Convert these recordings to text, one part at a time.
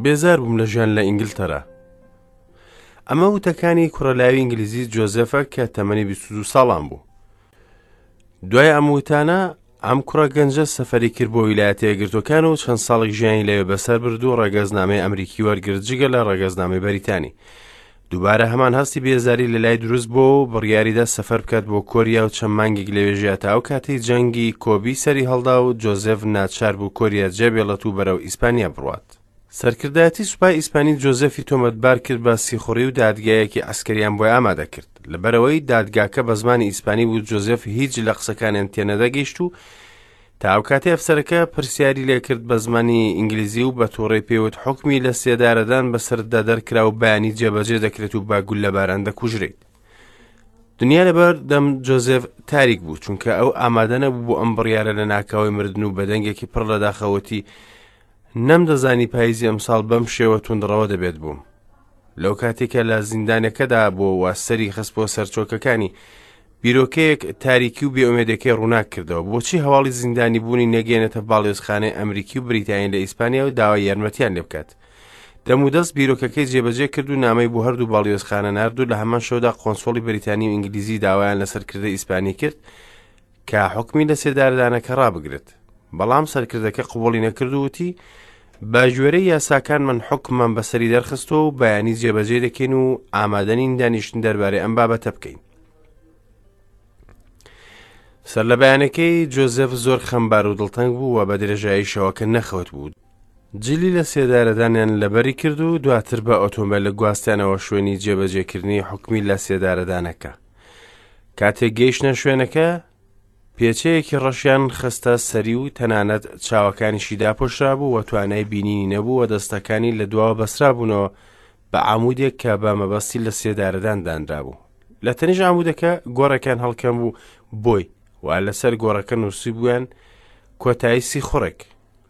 بێزار بووم لە ژیان لە ئینگلتەرا. ئەمە وتەکانی کوڕە لاوی ئینگلیزی جۆزێفە کە تەمەنی 22 ساڵان بوو. دوای ئەم وتانە ئەم کوڕە گەنجە سەفەری کرد بۆ ویلایەتە یەکگرتووەکان و چەند ساڵێک ژیانی لەوێ بەسەر برد و ڕەگەزنامەی ئەمریکی وەرگرت جگە لە ڕەگەزنامەی بەریتانی. دووبارە هەمان هەستی بێزاری لە لای دروست بۆ و بڕیاریدا سەفەر بکات بۆ کۆریا و چەند مانگێک لەوێ ژیا تا ئەو کاتەی جەنگی کۆبی سەری هەڵدا و جۆزێف ناچار بوو کۆریا جێبێڵێت و بەرەو ئیسپانیا بڕوات. سەرکردایەتی سوپای ئیسپانی جۆزێفی تۆمەتبار کرد بە سیخوڕی و دادگایەکی عەسکەریان بۆی ئامادە کرد. لەبەرئەوەی دادگاکە بە زمانی ئیسپانی بوو جۆزێف هیچ لە قسەکانیان تێنەدەگەیشت و تا ئەو کاتەی ئەفسەرەکە پرسیاری لێکرد بە زمانی ئینگلیزی و بە تووڕەی پێوت حوکمی لە سێدارەدان بەسەرتدا دەرکرا و بەیانی جێبەجێ دەکرێت و بە گوللەباران دەکوژرێیت. دنیا لەبەر دەم جۆزێف تاریک بوو چونکە ئەو ئامادە نەبوو بۆ ئەم بڕیارە لە ناکاوی مردن و بە دەنگێکی پڕ لە داخەوەتی نەمدەزانی پاییزی ئەمساڵ بەم شێوە توندڕەوە دەبێت بووم. لەو کاتێک کە لە زیندانەکەدا بووەوە سەری خست بۆ سەرچۆکەکانی بیرۆکەیەک تاریکی و بێئومێدەکەی ڕووناک کردەوە بۆچی هەواڵی زیندانی بوونی نەگەێنێتە باڵیۆزخانەی ئەمریکی و بریتانی لە ئیسپانیا و داوای یارمەتیان لێ بکات دەمودەست بیرۆکەکەی جێبەجێ کرد و نامەی بۆ هەردوو باڵیۆزخانە نارد و لە هەمان شەودا قۆنسۆڵی بریتانی و ئینگلیزی داوایان لە سەرکردە ئیسپانی کرد کە حوکمی لە سێدارەدانەکە ڕابگرێت بەڵام سەرکردەکە قبوڵی نەکرد و وتی بە گوێرەی یاساکان من حوکممان بەسەری دەرخستووە و بەیانی جێبەجێ دەکەین و ئامادەنین دانیشتن دەربارەی ئەم بابەتە بکەین سەر لە بەیانەکەی جۆزێف زۆر خەمبار و دڵتەنگ بوو و بە درێژایی شەوەکە نەخەوت بوو جلی لە سێدارەدانیان لەبەری کرد و دواتر بە ئۆتۆمبێل گواستیانەوە شوێنی جێبەجێکردنی حوکمی لە سێدارەدانەکە کاتێک گەیشتنە شوێنەکە پێچەیەکی ڕەشیان خستە سەری و تەنانەت چاوەکانیشی داپۆشرابوو و توانای بینینی نەبوو و دەستەکانی لە دواوە بەسرابوونەوە بە عامودێک کە بە مەبەستی لە سێدارەدان دانرابوو لە تەنیش عامودەکە گۆڕێکیان هەڵکەم بوو بۆی و لەسەر گۆڕەکە نووسیبوویان کۆتایی سیخوڕێک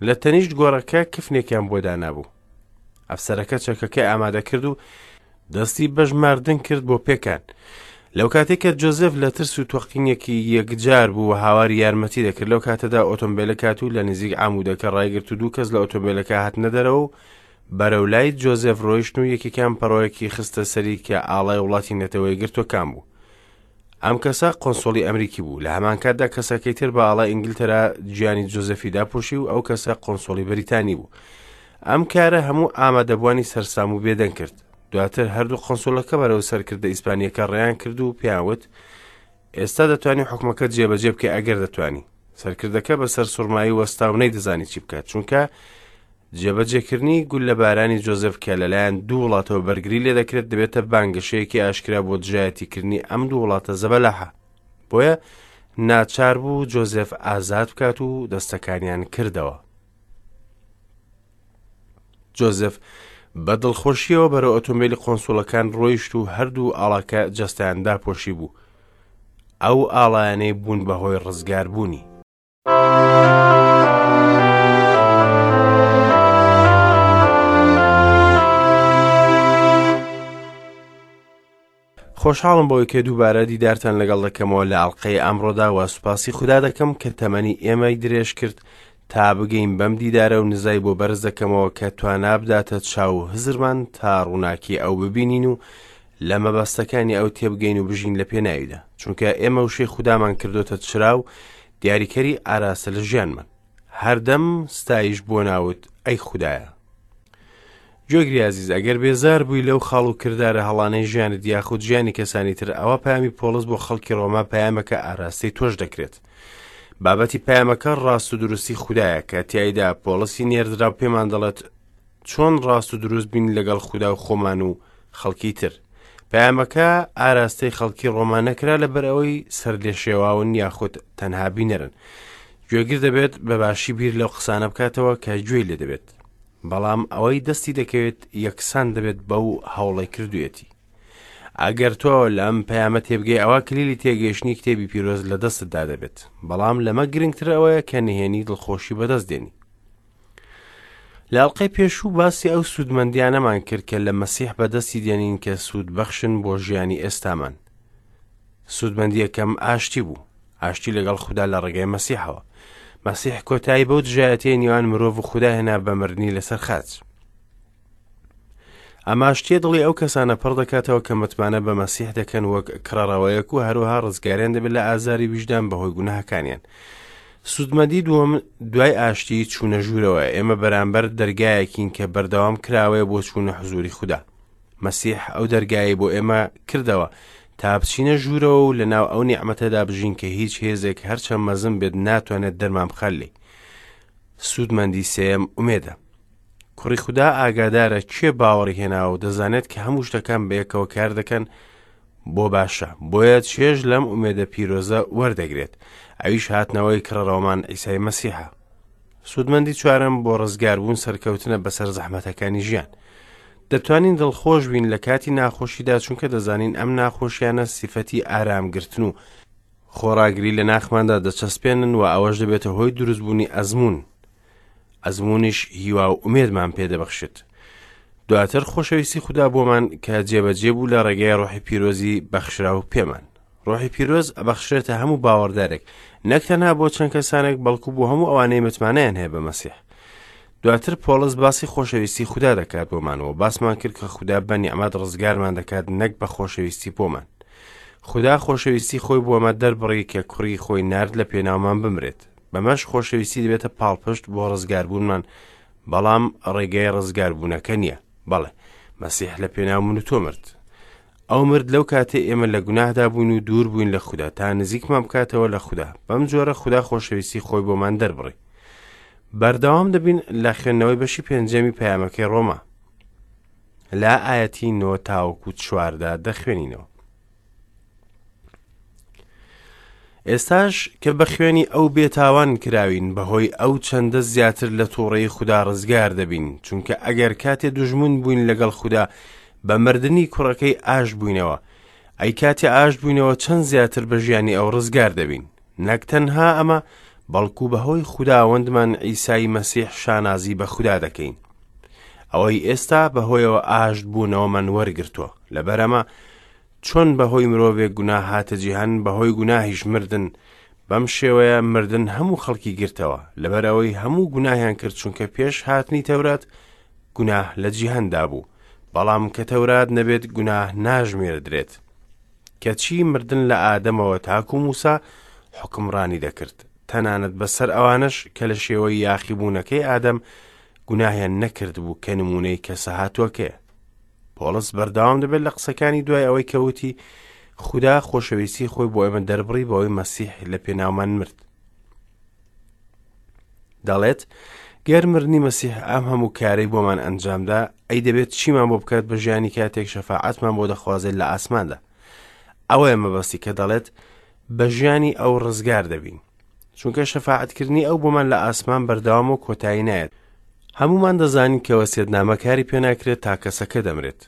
لە تەنیشت گۆڕەکە کفنێکیان بۆ دانابوو. ئەفسەرەکە چەکەکەی ئامادە کرد و دەستی بە ژماردن کرد بۆ پێکان. لەو کاتێک کە جۆزێف لە ترس و تۆقینێکی یەکجار بوو و هاواری یارمەتی دەکرد لەو کاتەدا ئۆتۆمبیلەکە هات و لە نزیک عامودەکە ڕایگرت و دوو کەس لە ئۆتۆمبیلەکە هاتنە دەرەوە و بەرەو لای جۆزێف ڕۆیشتن و یەکێکیان پەڕۆیەکی خستە سەری کە ئاڵای وڵاتی نەتەوە یەکگرتووەکان بوو. ئەم کەسە قۆنسۆڵی ئەمریکی بوو، لە هەمان کاتدا کەسەکەی تر بە ئاڵای ئینگلتەرا گیانی جۆزێفی داپۆشی و ئەو کەسە قۆنسۆڵی بەریتانی بوو. ئەم کارە هەموو ئامادەبووانی سەرسام و بێدەنگ کرد. دواتر هەردوو قۆنسۆڵەکە بەرەو سەرکردە ئیسپانییەکە ڕێیان کرد و پێیان وت، ئێستا دەتوانی حوکمەکەت جێبەجێ بکەی ئەگەر دەتوانی. سەرکردەکە بە سەرسوڕمایی وەستا و نەیدەزانی چی بکات، چونکە جێبەجێکردنی گوللەبارانی جۆزێف کە لەلایەن دوو وڵاتەوە بەرگری لێدەکرێت دەبێتە بانگەشەیەکی ئاشکرا بۆ دژایەتیکردنی ئەم دوو وڵاتە زەبەلاحە. بۆیە ناچار بوو جۆزێف ئازاد بکات و دەستەکانیان کردەوە. جۆزێف بە دڵخۆشیەوە بەرەو ئۆتۆمبیلی قۆنسوڵەکان ڕۆیشت و هەردوو ئاڵاکە جەستەیان داپۆشی بوو. ئەو ئاڵایانەی بوون بە هۆی ڕزگاربوونی. خۆشحاڵم بەوەی کە دووبارە دیدارتان لەگەڵ دەکەمەوە لە ئەڵلقەی ئەمڕۆدا و سوپاسی خودا دەکەم کە تەمەنی ئێمەی درێژ کرد تا بگەین بەم دیدارە و نزای بۆ بەرز دەکەمەوە کە توانا بداتە چاو و هزرمان تا ڕووناکی ئەو ببینین و لە مەبەستەکانی ئەو تێبگەین و بژین لە پێناویدا چونکە ئێمە وشەی خودامان کردۆتە چرا و دیاریکەری ئاراستە لە ژیانمان هەردەم ستایش بۆ ناوت ئەی خودایە گوێگری ئازیز ئەگەر بێزار بووی لەو خاڵ و کردارە هەڵانەی ژیانت یاخود ژیانی کەسانی تر ئەوە پامی پۆڵس بۆ خەڵکی ڕۆما پەیامەکە ئاراستەی تۆش دەکرێت بابەتی پەیامەکە ڕاست و دروستی خودایە کە تیایدا پۆڵسی نێردراو پێمان دەڵێت چۆن ڕاست و دروست بین لەگەڵ خودا و خۆمان و خەڵکی تر. پەیامەکە ئاراستەی خەڵکی ڕۆما نەکرا لەبەر ئەوەی سەرلێشێواون یاخود تەنها بینەرن. گوێگر دەبێت بە باشی بیر لەو قسانە بکاتەوە کە گوێی لێ دەبێت. بەڵام ئەوەی دەستی دەکەوێت یەکسان دەبێت بەو هەوڵەی کردوویەتی. ئەگەر تۆ لەم پەیامە تێبگەی ئەوا کلیلی تێگەیشتنی کتێبی پیرۆز لە دەستتدا دەبێت. بەڵام لەمە گرنگتر ئەوەیە کە نهێنی دڵخۆشی بەدەست دێنی. لە ئەڵقەی پێشوو باسی ئەو سوودمەندیانەمان کرد کە لە مەسیح بەدەستی دێنین کە سوودبەخشن بۆ ژیانی ئێستامان. سوودمەندیەکەم ئاشتی بوو، ئاشتی لەگەڵ خودا لە ڕێگای مەسیحەوە. مەسیح کۆتایی بەو دژایەتیەی نێوان مرۆڤ و خودا هێنا بە مردنی لەسەر خاچ. ئەم ئاشتییە دڵی ئەو کەسانە پڕ دەکاتەوە کە متمانە بە مەسیح دەکەن وەک کڕەڕەوەیەک و هەروەها ڕزگاریان دەبێت لە ئازاری ویژدان بەهۆی گوناهەکانیان. سوودمەندی دووەم دوای ئاشتی چوونە ژوورەوەیە. ئێمە بەرامبەر دەرگایەکین کە بەردەوام کراوەیە بۆ چوونە حزوری خودا. مەسیح ئەو دەرگایەی بۆ ئێمە کردەوە تا بچینە ژوورەوە و لەناو ئەو نیعمەتەدا بژین کە هیچ هێزێک هەرچەند مەزن بێت ناتوانێت دەرمان بخات لێی. سوودمەندی سێیەم ئومێدە. کوڕی خودا ئاگادارە کێ باوەڕی هێناوە و دەزانێت کە هەموو شتەکان بەیەکەوە کار دەکەن بۆ باشە، بۆیە چێژ لەم ئومێدە پیرۆزە وەردەگرێت، ئەویش هاتنەوەی کڕەڕەوەمان عیسای مەسیحە. سوودمەندی چوارەم بۆ ڕزگاربوون سەرکەوتنە بەسەر زەحمەتەکانی ژیان. دەتوانین دڵخۆش بین لە کاتی ناخۆشیدا چونکە دەزانین ئەم ناخۆشیانە سیفەتی ئارامگرتن و خۆڕاگری لە ناخماندا دەچەسپێنن و ئەوەش دەبێتە هۆی دروستبوونی ئەزموون. ئەزموونیش هیوا و ئومێدمان پێدەبەخشێت. دواتر خۆشەویستی خودا بۆمان کە جێبەجێ بوو لە ڕێگەی ڕۆحی پیرۆزی بەخشراو پێمان. ڕۆحی پیرۆز ئەبەخشرێتە هەموو باوەڕدارێک، نەک تەنها بۆ چەند کەسانێک بەڵکو بۆ هەموو ئەوانەی متمانەیان هەیە بە مەسیح. دواتر پۆڵس باسی خۆشەویستی خودا دەکات بۆمان و باسمان کرد کە خودا بە نیعمەت ڕزگارمان دەکات نەک بە خۆشەویستی بۆمان. خودا خۆشەویستی خۆی بۆمە دەربڕی کە کوڕی خۆی نارد لە پێناومان بمرێت. بەمەش خۆشەویستی دەبێتە پاڵپشت بۆ ڕزگاربوونمان، بەڵام ڕێگای ڕزگاربوونەکە نییە. بەڵێ، مەسیح لە پێناو من و تۆ مرد. ئەو مرد لەو کاتەی ئێمە لە گوناهدا بووین و دوور بووین لە خودا تا نزیکمان بکاتەوە لە خودا. بەم جۆرە خودا خۆشەویستی خۆی بۆمان دەربڕی. بەردەوام دەبین لە خوێندنەوەی بەشی پێنجەمی پەیامەکەی ڕۆما. لە ئایەتی نۆ تاوەکو چواردا دەخوێنینەوە. ئێستاش کە بە خوێنی ئەو بێتاوان کراوین بەهۆی ئەو چەندە زیاتر لە تووڕەیی خودا ڕزگار دەبین چونکە ئەگەر کاتێ دوژمن بووین لەگەڵ خودا بە مردنی کوڕەکەی ئاش بووینەوە ئەی کاتێ ئاش بووینەوە چەند زیاتر بە ژیانی ئەو ڕزگار دەبین نەک تەنها ئەمە بەڵکو بەهۆی خوداوەندمان عیسای مەسیح شانازی بە خودا دەکەین ئەوەی ئێستا بەهۆیەوە ئاشت بوونەوەمان وەرگرتووە لەبەرەمە چۆن بەهۆی مرۆڤێک گوناه هاتە جیهان، بەهۆی گوناهیش مردن، بەم شێوەیە مردن هەموو خەڵکی گرتەوە، لەبەرئەوەی هەموو گوناهیان کرد، چونکە پێش هاتنی تەورات گوناه لە جیهاندا بوو، بەڵام کە تەورات نەبێت گوناه ناژمێردرێت. کەچی مردن لە ئادەمەوە تاکو موسا حوکمڕانی دەکرد، تەنانەت بەسەر ئەوانەش کە لە شێوەی یاخیبوونەکەی ئادەم گوناهیان نەکردبوو کە نموونەی کەسە هاتووەکەیە. پۆڵس بەردەوام دەبێت لە قسەکانی دوای ئەوەی کە وتی خودا خۆشەویستی خۆی بۆ ئێمە دەربڕی بەوەی مەسیح لە پێناومان مرد دەڵێت گەر مردنی مەسیح ئەم هەموو کارەی بۆمان ئەنجامدا ئەی دەبێت چیمان بۆ بکات بە ژیانی کاتێک شەفاعەتمان بۆ دەخوازێت لە ئاسماندا ئەوەیە مەبەستی کە دەڵێت بە ژیانی ئەو ڕزگار دەبین چونکە شەفاعەتکردنی ئەو بۆمان لە ئاسمان بەردەوامە و کۆتایی نایەت. هەموومان دەزانین کە وەسیەتنامە کاری پێناکرێت تا کەسەکە دەمرێت.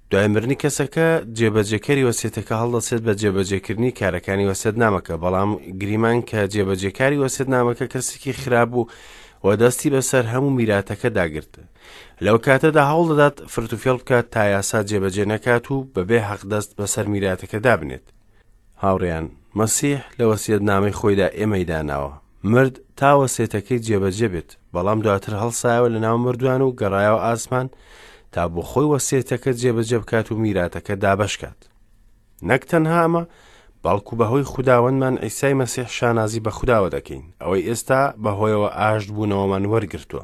دوای مردنی کەسەکە، جێبەجێکەری وەسیەتەکە هەڵدەسێت بە جێبەجێکردنی کارەکانی وەسیەتنامەکە، بەڵام گریمان کە جێبەجێکاری وەسیەتنامەکە کەسێکی خراپ بوو و دەستی بەسەر هەموو میراتەکەدا گرت. لەو کاتەدا هەوڵدەدات فرتوفێڵ بکات تا یاسا جێبەجێ نەکات و بەبێ حەقدەست بەسەر میراتەکە دابنێت. هاوڕێیان، مەسیح لە وەسیەتنامەی خۆیدا ئێمەی داناوە. مرد تا وەسێتەکەی جێبەجێ بێت، بەڵام دواتر هەڵسایەوە لە ناو مردووان و گەڕایەوە ئاسمان تا بۆ خۆی وەسێتەکە جێبەجێ بکات و میراتەکە دابەش کات. نەک تەنها ئەمە، بەڵکو بەهۆی خوداوەندمان عیسای مەسیح شانازی بە خوداوە دەکەین، ئەوەی ئێستا بەهۆیەوە ئاشت بوونەوەمان وەرگرتووە.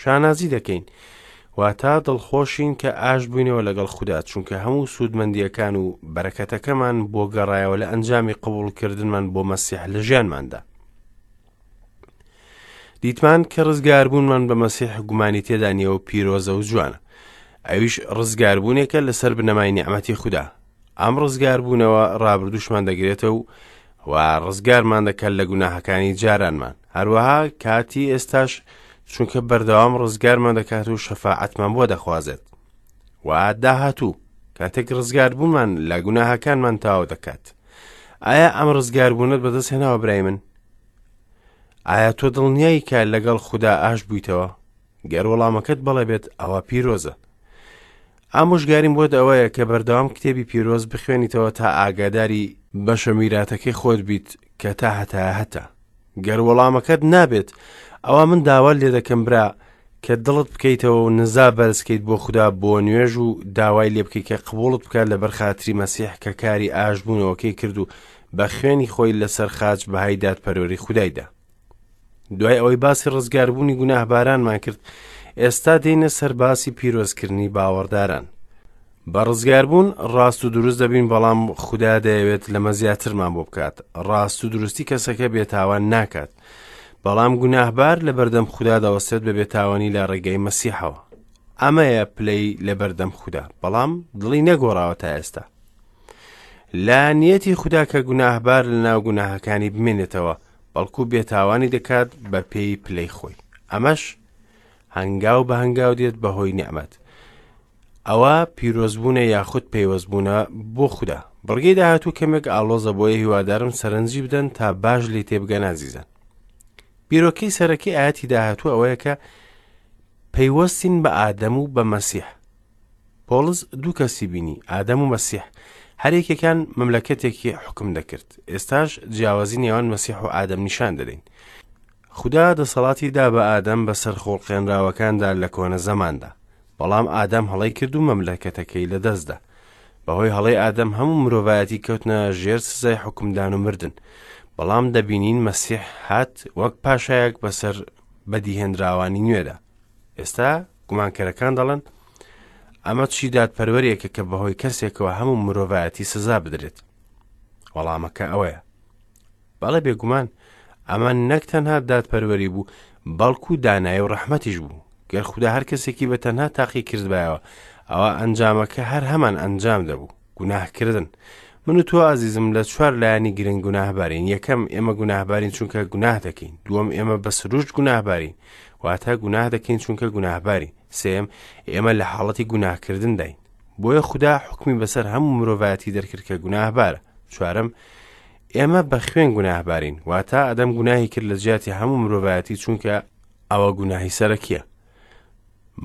شانازی دەکەین واتا دڵخۆشین کە ئاشت بووینەوە لەگەڵ خودا چونکە هەموو سوودمەندیەکان و بەرەکەتەکەمان بۆ گەڕایەوە لە ئەنجامی قبوڵکردنمان بۆ مەسیح لە ژیانماندا دیتمان کە ڕزگاربوونمان بە مەسیح گومانی تێدا نییە و پیرۆزە و جوانە ئەویش ڕزگاربوونێکە لەسەر بنەمای نیعمەتی خودا ئەم ڕزگاربوونەوە ڕابردووشمان دەگرێتەوە و و ڕزگارمان دەکات لە گوناهەکانی جارانمان هەروەها کاتی ئێستاش چونکە بەردەوام ڕزگارمان دەکات و شەفاعەتمان بۆ دەخوازێت و داهاتوو کاتێک ڕزگاربوونمان لە گوناهەکانمان تەواو دەکات ئایا ئەم ڕزگاربوونەت بەدەست هێناوە برای من ئایا تۆ دڵنیایی کە لەگەڵ خودا ئاش بوویتەوە گەر وەڵامەکەت بەڵێ بێت ئەوە پیرۆزە ئامۆژگاریم بۆت ئەوەیە کە بەردەوام کتێبی پیرۆز بخوێنیتەوە تا ئاگاداری بەشە میراتەکەی خۆت بیت کە تا هەتایە هەتە. گەر وەڵامەکەت نابێت ئەوا من داوات لێ دەکەم برا کە دڵت بکەیتەوە و نزا بەرزکەیت بۆ خودا بۆ نوێژ و داوای لێ بکەیت کە قبوڵت بکات لەبەر خاتری مەسیح کە کاری ئاشبوونەوەکەی کرد و بە خوێنی خۆی لەسەر خاچ بەهای دادپەروەری خودای دا. دوای ئەوەی باسی ڕزگاربوونی گوناهبارانمان کرد، ئێستا دێینە سەر باسی پیرۆزکردنی باوەڕداران. بە ڕزگاربوون ڕاست و دروست دەبین بەڵام خودا دەیەوێت لەمە زیاترمان بۆ بکات. ڕاست و دروستی کەسەکە بێتاوان ناکات. بەڵام گوناهبار لە بەردەم خودا دەوەستێت بە بێتاوانی لە ڕێگەی مەسیحەوە. ئەمەیە پلەی لە بەردەم خودا، بەڵام دڵی نەگۆڕاوە تا ئێستا. لە نیەتی خودا کە گوناهبار لە ناو گوناهەکانی بمێنێتەوە، بەڵکو بێتاوانی دەکات بە پێی پلەی خۆی. ئەمەش هەنگاو بە هەنگاو دێت بە هۆی نیعمەت. ئەوە پیرۆزبوونە یاخود پەیوەستبوونە بۆ خودا. بڕگەی داهاتوو کەمێک ئاڵۆزە بۆیە هیوادارم سەرنجی بدەن تا باش لێی تێبگەن ئازیزان. بیرۆکەی سەرەکی ئاەتی داهاتوو ئەوەیە کە پەیوەستین بە ئادەم و بە مەسیح. پۆڵس دوو کەسی بینی، ئادەم و مەسیح. هەر یەکێکیان مەملەکەتێکی حوکم دەکرد. ئێستاش جیاوازی نێوان مەسیح و ئادەم نیشان دەدەین. خودا دەسەڵاتی دا بە ئادەم بەسەر خوڵقێنراوەکاندا لە کۆنە زەماندا. بەڵام ئادەم هەڵەی کرد و مەملەکەتەکەی لەدەستدا. بەهۆی هەڵەی ئادەم هەموو مرۆڤایەتی کەوتنە ژێر سزای حوکمدان و مردن. بەڵام دەبینین مەسیح هات وەک پاشایەک بەسەر بەدیهێنراوانی نوێدا. ئێستا گومانکەرەکان دەڵێن ئەمە چی دادپەروەریەکە کە بەهۆی کەسێکەوە هەموو مرۆڤایەتی سزا بدرێت؟ وەڵامەکە ئەوەیە بەڵێ بێگومان ئەمە نەک تەنها دادپەروەری بوو بەڵکو دانایی و ڕەحمەتیش بوو گەر خودا هەر کەسێکی بە تەنها تاقی کردبایەوە ئەوە ئەنجامەکە هەر هەمان ئەنجام دەبوو گوناهکردن من و تۆ ئازیزم لە چوار لایەنی گرنگ گوناهبارین یەکەم ئێمە گوناهبارین چونکە گوناه دەکەین دووەم ئێمە بە سروشت گوناهبارین واتە گوناه دەکەین چونکە گوناهبارین سێم ئێمە لە حاڵەتی گوناهکردنداین بۆیە خودا حکمی بەسەر هەموو مرۆڤایەتی دەرکرد کە گوناهبارە چوارەم ئێمە بە خوێن گوناهبارین واتە ئەدەم گوناهی کرد لە جیاتی هەموو مرۆڤایەتی چونکە ئەوە گوناهی سەرەکیە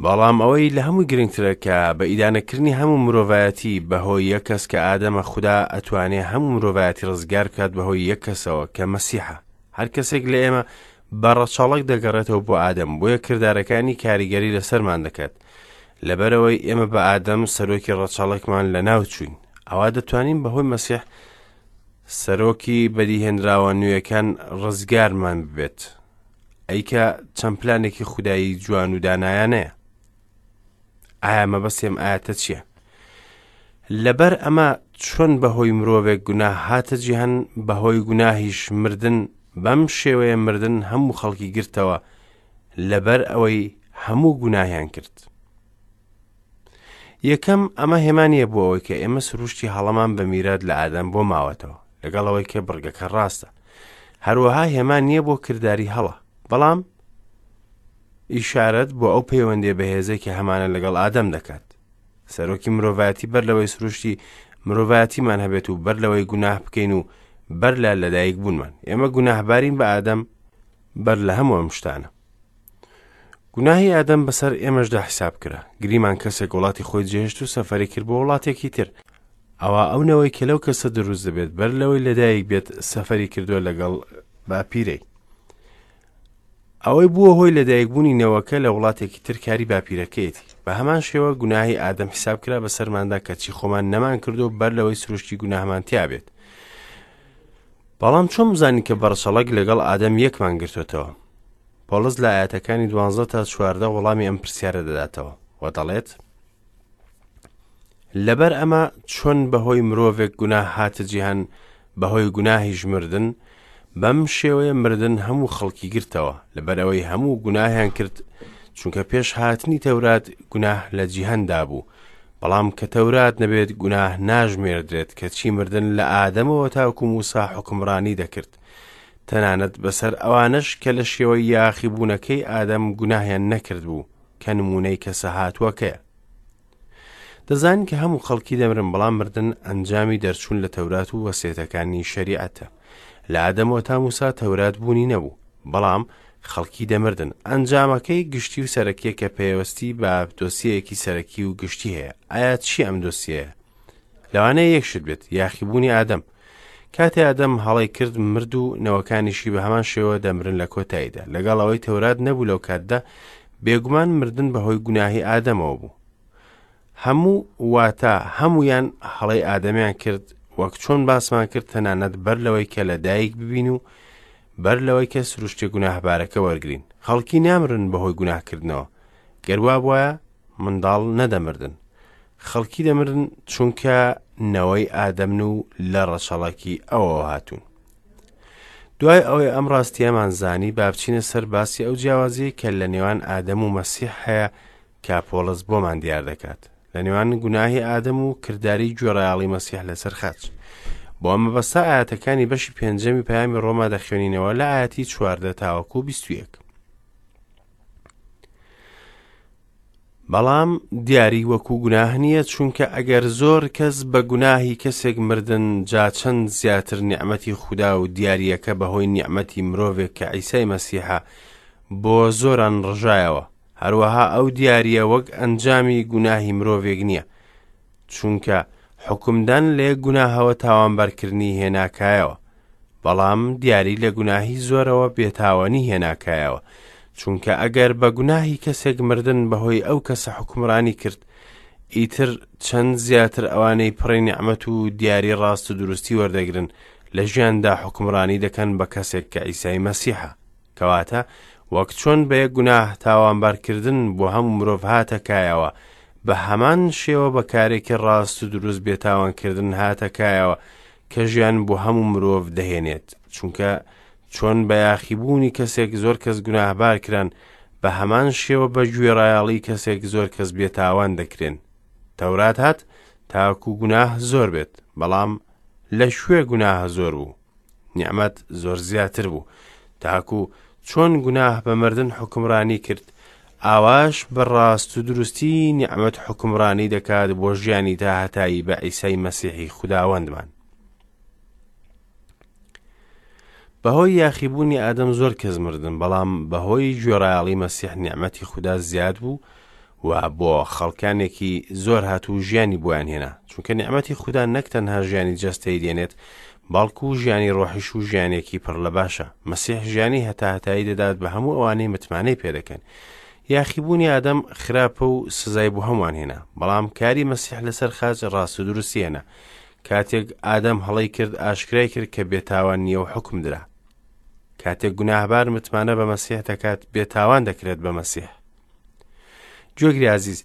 بەڵام ئەوەی لە هەمووی گرنگترە کە بە ئیدانەکردنی هەموو مرۆڤایەتی بەهۆی یەک کەس کە ئادەمە خودا ئەتوانێ هەموو مرۆڤایەتی ڕزگار بکات بەهۆی یەک کەسەوە کە مەسیحە هەر کەسێک لە ئێمە بە ڕەچەڵەک دەگەڕێتەوە بۆ ئادەم بۆیە کردارەکانی کاریگەری لەسەرمان دەکات لەبەرەوەی ئێمە بە ئادەم سەرۆکی ڕەچەڵەکمان لە ناو چوین ئەوا دەتوانین بەهۆی مەسیح سەرۆکی بەدیهێنراوە نوێیەکان ڕزگارمان ببێت ئەی کە چەند پلانێکی خودایی جوان و دانایانەیە ئایا مەبەستی ئەم ئاەتە چییە؟ لەبەر ئەمە چۆن بەهۆی مرۆڤێک گوناه هاتە جیهان بەهۆی گوناهیش مردن بەم شێوەیە مردن هەموو خەڵکی گرتەوە لەبەر ئەوەی هەموو گوناهیان کرد یەکەم ئەمە هێما نییە بۆ ئەوەی کە ئێمە سروشتی هەڵەمان بە میرات لە ئادەم بۆ ماوەتەوە لەگەڵ ئەوەی کە بڕگەکە ڕاستە هەروەها هێما نییە بۆ کرداری هەڵە بەڵام ئیشارەت بۆ ئەو پەیوەندی بەهێزەی کە هەمانە لەگەڵ ئادەم دەکات سەرۆکی مرۆڤایەتی بەر لەوەی سروشتی مرۆڤایەتیمان هەبێت و بەر لەوەی گوناه بکەین و بەر لە لەدایک بوونمان ئێمە گوناهبارین بە ئادەم بەر لە هەموو ئەم شتانە گوناهی ئادەم بەسەر ئێمەشدا حیساب کرا. گریمان کەسێک وڵاتی خۆی جێهێشت و سەفەری کرد بۆ وڵاتێکی تر. ئەوا ئەو نەوەی کە لەو کەسە دروست دەبێت بەر لەوەی لەدایک بێت سەفەری کردووە لەگەڵ باپیرەی. ئەوەی بووە هۆی لەدایکبوونی نەوەکە لە وڵاتێکی تر کاری باپیرەکەیەتی. بە هەمان شێوە گوناهی ئادەم حیساب کرا بەسەرماندا کەچی خۆمان نەمان کردو بەر لەوەی سروشتی گوناهمان تیا بێت. بەڵام چۆن بزانین کە بەڕچەڵەک لەگەڵ ئادەم یەکمان گرتوێتەوە؟ پۆڵس لە ئاەتەکانی دوانزە تا چواردە وەڵامی ئەم پرسیارە دەداتەوە و دەڵێت لەبەر ئەمە چۆن بەهۆی مرۆڤێک گوناه هاتە جیهان بەهۆی گوناهیش مردن بەم شێوەیە مردن هەموو خەڵکی گرتەوە لەبەرئەوەی هەموو گوناهیان کرد چونکە پێش هاتنی تەورات گوناه لە جیهاندا بوو بەڵام کە تەورات نەبێت گوناه ناژمێردرێت کەچی مردن لە ئادەمەوە تاکو موسا حوکمڕانی دەکرد تەنانەت بەسەر ئەوانەش کە لە شێوەی یاخیبوونەکەی ئادەم گوناهیان نەکردبوو کە نموونەی کەسە هاتووەکەیە. دەزانین کە هەموو خەڵکی دەمرن بەڵام مردن ئەنجامی دەرچوون لە تەورات و وەسێتەکانی شەریعەتە. لە ئادەمەوە تا موسا تەورات بوونی نەبوو، بەڵام خەڵکی دەمردن. ئەنجامەکەی گشتی و سەرەکیە کە پەیوەستی بە دۆسیەیەکی سەرەکی و گشتی هەیە. ئایا چی ئەم دۆسیەیە؟ لەوانەیە یەک شت بێت، یاخیبوونی ئادەم. کاتێ ئادەم هەڵەی کرد مرد و نەوەکانیشی بە هەمان شێوە دەمرن لە کۆتاییدا. لەگەڵ ئەوەی تەورات نەبوو لەو کاتدا، بێگومان مردن بەهۆی گوناهی ئادەمەوە بوو. هەموو واتە هەموویان هەڵەی ئادەمیان کرد وەک چۆن باسمان کرد تەنانەت بەر لەوەی کە لە دایک ببین و بەر لەوەی کە سروشتی گوناهبارەکە وەرگین خەڵکی نامرن بەهۆی گوناهکردنەوە گەر وابوایە منداڵ نەدەمردن خەڵکی دەمرن چونکە نەوەی ئادەمن و لە ڕەچەڵەکی ئەوەوە هاتوون. دوای ئەوەی ئەم ڕاستیەمان زانی با بچینە سەر باسی ئەو جیاوازیەی کە لە نێوان ئادەم و مەسیح هەیە کە پۆڵس بۆمان دیار دەکات لە نێوان گوناهی ئادەم و کرداری گوێڕایەڵی مەسیح لەسەر خاچ. بۆ ئەم مەبەستە ئاەتەکانی بەشی پێنجەمی پەیامی ڕۆما دەخوێنینەوە لە ئاەتی 14 تاوەکو 21. بەڵام دیاری وەکو گوناه نییە چونکە ئەگەر زۆر کەس بە گوناهی کەسێک مردن جا چەند زیاتر نیعمەتی خودا و دیارییەکە بەهۆی نیعمەتی مرۆڤێک کە عیسای مەسیحە بۆ زۆران ڕژایەوە هەروەها ئەو دیارییە وەک ئەنجامی گوناهی مرۆڤێک نییە چونکە حوکمدان لە یەک گوناهەوە تاوانبارکردنی هێناکایەوە بەڵام دیاری لە گوناهی زۆرەوە بێتاوانی هێناکایەوە چونکە ئەگەر بە گوناهی کەسێک مردن بەهۆی ئەو کەسە حکومڕانی کرد ئیتر چەند زیاتر ئەوانەی پڕی نیعمەت و دیاری ڕاست و دروستی وەردەگرن لە ژیاندا حکومڕانی دەکەن بە کەسێک کە عیسای مەسیحە کەواتە وەک چۆن بە یەک گوناه تاوانبارکردن بۆ هەموو مرۆڤ هاتە کایەوە بە هەمان شێوە بە کارێکی ڕاست و دروست بێتاوانکردن هاتە کایەوە کە ژیان بۆ هەموو مرۆڤ دەهێنێت چونکە چۆن بە یاخیبوونی کەسێک زۆر کەس گوناهبار کران بە هەمان شێوە بە گوێڕایەڵی کەسێک زۆر کەس بێتاوان دەکرێن تەورات هات تاکو گوناه زۆر بێت بەڵام لە کوێ گوناه زۆر بوو نیعمەت زۆر زیاتر بوو تاکو چۆن گوناه بە مردن حوکمڕانی کرد ئاواش بە ڕاست و دروستی نیعمەت حوکمڕانی دەکات بۆ ژیانی تا هەتایی بە عیسای مەسیحی خوداوەندمان. بەهۆی یاخیبوونی ئادەم زۆر کەس مردن بەڵام بەهۆی گوێڕایەڵی مەسیح نیعمەتی خودا زیاد بوو و بۆ خەڵکانێکی زۆر هات و ژیانی بۆیان هێنا چونکە نیعمەتی خودا نەک تەنها ژیانی جەستەی دێنێت بەڵکو ژیانی ڕۆحیش و ژیانێکی پڕ لە باشە مەسیح ژیانی هەتاهەتایی دەدات بە هەموو ئەوانەی متمانەی پێدەکەن یاخیبوونی ئادەم خراپە و سزای بۆ هەمووان هێنا بەڵام کاری مەسیح لەسەر خاچ ڕاست و دروستی هێنا کاتێک ئادەم هەڵەی کرد ئاشکرای کرد کە بێتاوان نییە و حکم درا کاتێک گوناهبار متمانە بە مەسیح دەکات بێتاوان دەکرێت بە مەسیح گوێگری ئازیز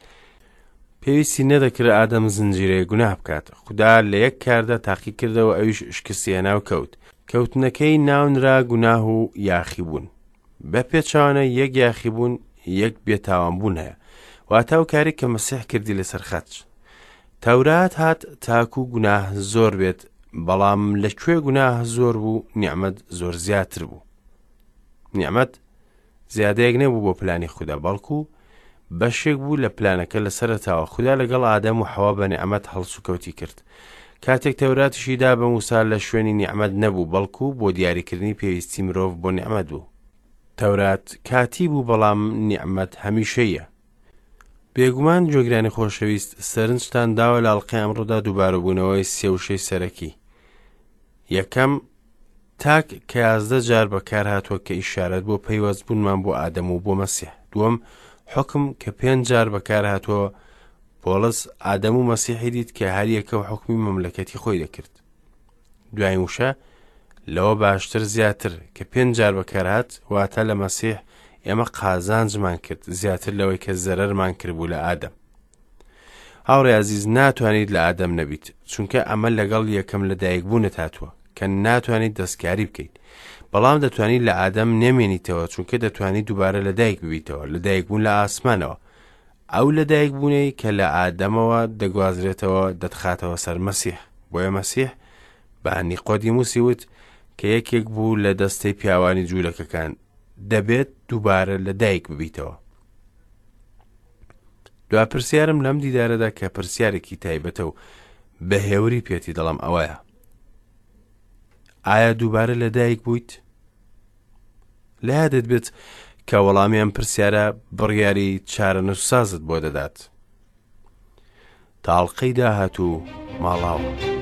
پێویستی نەدەکرد ئادەم زنجیرەیە گوناه بکات خودا لە یەک کاردا تاقی کردەوە ئەویش شکستی هێنا و کەوت کەوتنەکەی ناونرا گوناه و یاخیبوون بە پێچوانە یەک یاخیبوون یەک بێتاوانبوون هەیە واتا و کارێک کە مەسیح کردی لەسەر خەچ تەورات هات تاکو گوناه زۆر بێت بەڵام لە کوێ گوناه زۆر بوو نیعممەد زۆر زیاتر بوو نیعممەد زیادەیەک نەبوو بۆ پلانی خودا بەڵکو بەشێک بوو لە پلانەکە لە سەرەتاوە خودا لەگەڵ ئادەم و حەوا بە نیعمەت هەڵسوکەوتی کرد کاتێک تەوراتیشی دا بە موسا لە شوێنی نیعمەت نەبوو بەڵکو بۆ دیاریکردنی پێویستی مرۆڤ بۆ نیعمەت بوو تەورات کاتی بوو بەڵام نیعمەت هەمیشەیە بێگومان گوێگرانی خۆشەویست سەرنجتان داوە لە ئەڵقەی ئەمڕۆدا دووبارەبوونەوەی سێ وشەی سەرەکی یەکەم تاک کە 11 جار بەکارهاتووە کە ئیشارەت بۆ پەیوەست بوونمان بۆ ئادەم و بۆ مەسیح دووەم حوکم کە پێنج جار بەکارهاتووە پۆڵس ئادەم و مەسیحی دیت کە هەریەکە و حوکمی مەملەکەتی خۆی دەکرد دوایین وشە لەوە باشتر زیاتر کە پێنج جار بەکارهات واتە لە مەسیح ئێمە قازانجمان کرد زیاتر لەوەی کە زەرەرمان کردبوو لە ئادەم هاوڕێ ئازیز ناتوانیت لە ئادەم نەبیت چونکە ئەمە لەگەڵ یەکەم لە دایکبوونت هاتووە کە ناتوانیت دەستکاری بکەیت بەڵام دەتوانیت لە ئادەم نەمێنیتەوە چونکە دەتوانیت دووبارە لە دایک ببیتەوە لە دایکبوون لە ئاسمانەوە ئەو لە دایکبوونەی کە لە ئادەمەوە دەگوازرێتەوە دەتخاتەوە سەر مەسیح بۆیە مەسیح بە نیقۆدیموسی وت کە یەکێک بوو لە دەستەی پیاوانی جوولەکەکان دەبێت دووبارە لە دایک ببیتەوە دوا پرسیارم لەم دیدارەدا کە پرسیارێکی تایبەتە و بە هێوری پێتی دەڵم ئەوەیە ئایا دووبارە لە دایک بوویت؟ لە یادت بێت کە وەڵامی ئەم پرسیارە بڕیاری چارەنووسسازت بۆ دەدات. تاڵقەی داهاتوو ماڵاوە.